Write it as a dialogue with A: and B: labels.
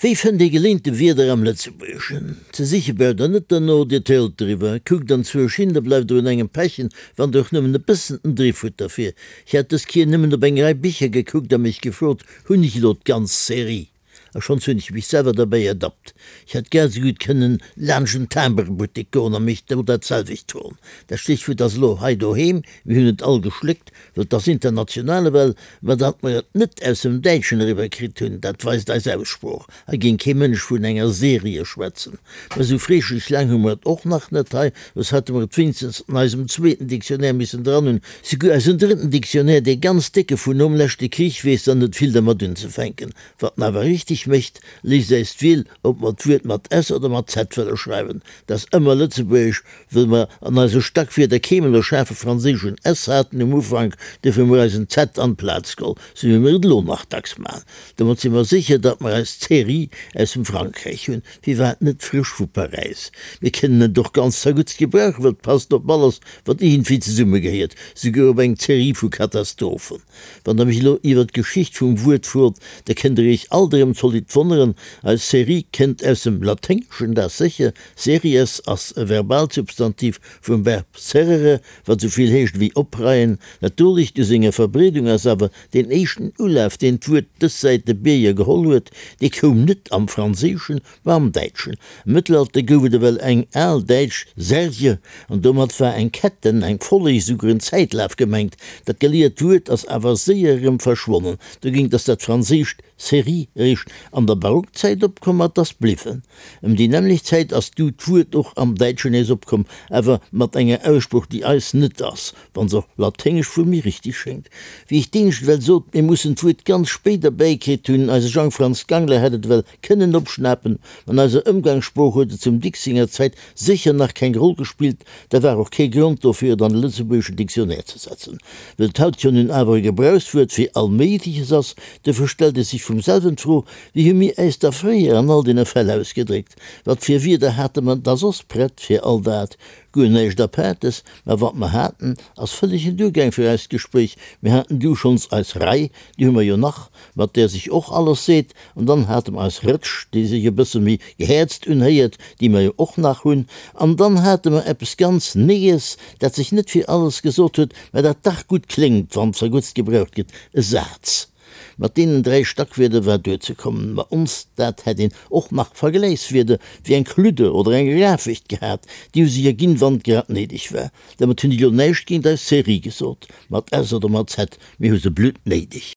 A: Wéi fënnt ee geleente Wierder am Lëtzebuergeschen? Ze siche braucht der net derno, Dir tëlt driwwer, kuckt anzwousch hin, da bleift der un engem pechen, wann der och nëmmen e bëssen den Driff hutt derfir. Ech hat dës Kier nëmmen op eng Rei Bicher gekuckt a mech gefrot, Hunn ech elo d'ganz Serie? A schonns hunn ech mech selwer derbäi ertappt. Ech hätt grad esou gutt kënnen laanscht en Timbrebuttek goen a mech do dat selwecht froen. Dat Stéchwuert ass elo hei doheem, mir hunn et all geschléckt, well 't ass international ewell, ma datt mer et net aus dem Däitschen eriwwer kritt hunn, dat weist eis Aussprooch. Hei géing kee Mënsch vun enger Serie schwätzen. Mä esou freeschlech laang hu mer et och nach net hei, soss hätte mer et wéinstens an eisem zweeten Dictionnaire missen dran hunn. Souguer eisen drëtten Dictionnaire, dee ganz décke vun nom leschte Krich, weess dann net vill dermat unzefänken. Wat en awer richteg mécht, léisst äis d'Wiel, ob mer d'Wuert mat s oder mat z wëlle schreiwen. Dat ass ëmmer lëtzebuergesch, wëll mer an eise Stackwierder keemol e schaarfe franséischen s haten um Ufank, duerfir hu mer eis en z an d'Plaz geholl, sou wéi mer et elo nach dacks maachen. Domat si mer sécher, datt mer eis Série aus dem Frankräich hunn, firwat net frësch vu Paräis? Mir kënnen et och ganz zerguttst gebrauchen, well et passt op alles, wat iergendwéi zesummegehéiert, souguer op eng Série vu Katastrophen. Wann der mech elo iwwer d'Geschicht vum Wuert frot, da kënnt der iech alt erëm zolidd wonneren, Eis Série kënnt aus dem Laténgeschen, dat sécher, series ass e Verbalsubstantiv vum Verb serrere, wat esou vill heescht ewéi opreien. Natierlech, u senger Verbreedung ass awer Deen éischten Ulaf, deen d'Wuert dës Säit de Bierger geholl huet, dee koum net am Franséischen, ma am Däitschen. Am Mëttelalter gouf et ewell eng al däitsch Serge, an domat war eng Ketten, eng Folleg, esouguer en Zäitlaf gemengt. Dat geliert Wuert ass awer séier erëm verschwonnen. Dogéint ass dat franséischt Série eréischt an der Barockzäit opkomm a 't ass bliwwen. Ëm déi nämmlecht Zäit ass du d'Wuert och am Däitschen nees opkomm, awer mat enger Aussprooch, déi eis net ass. Wann se och laténgesch vu mir richteg schéngt. Wéi ech d'éinescht ewell sot, mir mussen d'Wuert ganz spéit erbäikritt hunn, eise Jang-Franz Gangler hätt et ewell kënnen opschnapen, an eiser Ëmgangssprooch huet et zum Dicks senger Zäit sécher nach keng Roll gespillt, da war och kee Grond dofir, et an de lëtzebuergeschen Dictionnaire ze setzen. Wëll et haut jo nun awer e Gebrauchswuert fir all Méigleches ass, duerfir stellt et sech vum selwen d'Fro, Wéi hu mir äis da fréier an all deene Fäll ausgedréckt? Wat fir Wierder hate mer da soss prett fir all dat? Guer näischt Apaartes, mä wat mer haten, ass vëllegen duergaang fir eist Gespréich. Mir haten du schonns eis Rei, déi hu mer jo nach, mat där sech och alles seet, an dann hate mer eis Rëtsch, déi sech e bësse méi gehäerzt unhéiert, déi mer jo och nach hunn, an dann hate mer eppes ganz Nees, dat sech net fir alles gesot huet, mä dat dach gutt kléngt, wann zerguttst gebraucht gëtt, e Saz. Mat deenen 3 Stackwierder war duerzekommen. Ma ons dat hätt een och nach Vergläichswierder wéi eng Kludde oder eng Rafecht gehat, déi hu sech erginn, wann et grad néideg war. Domat hunn ech elo näischt géint eis Serie gesot, mat S oder mat Z, mir hu se bluttnéideg.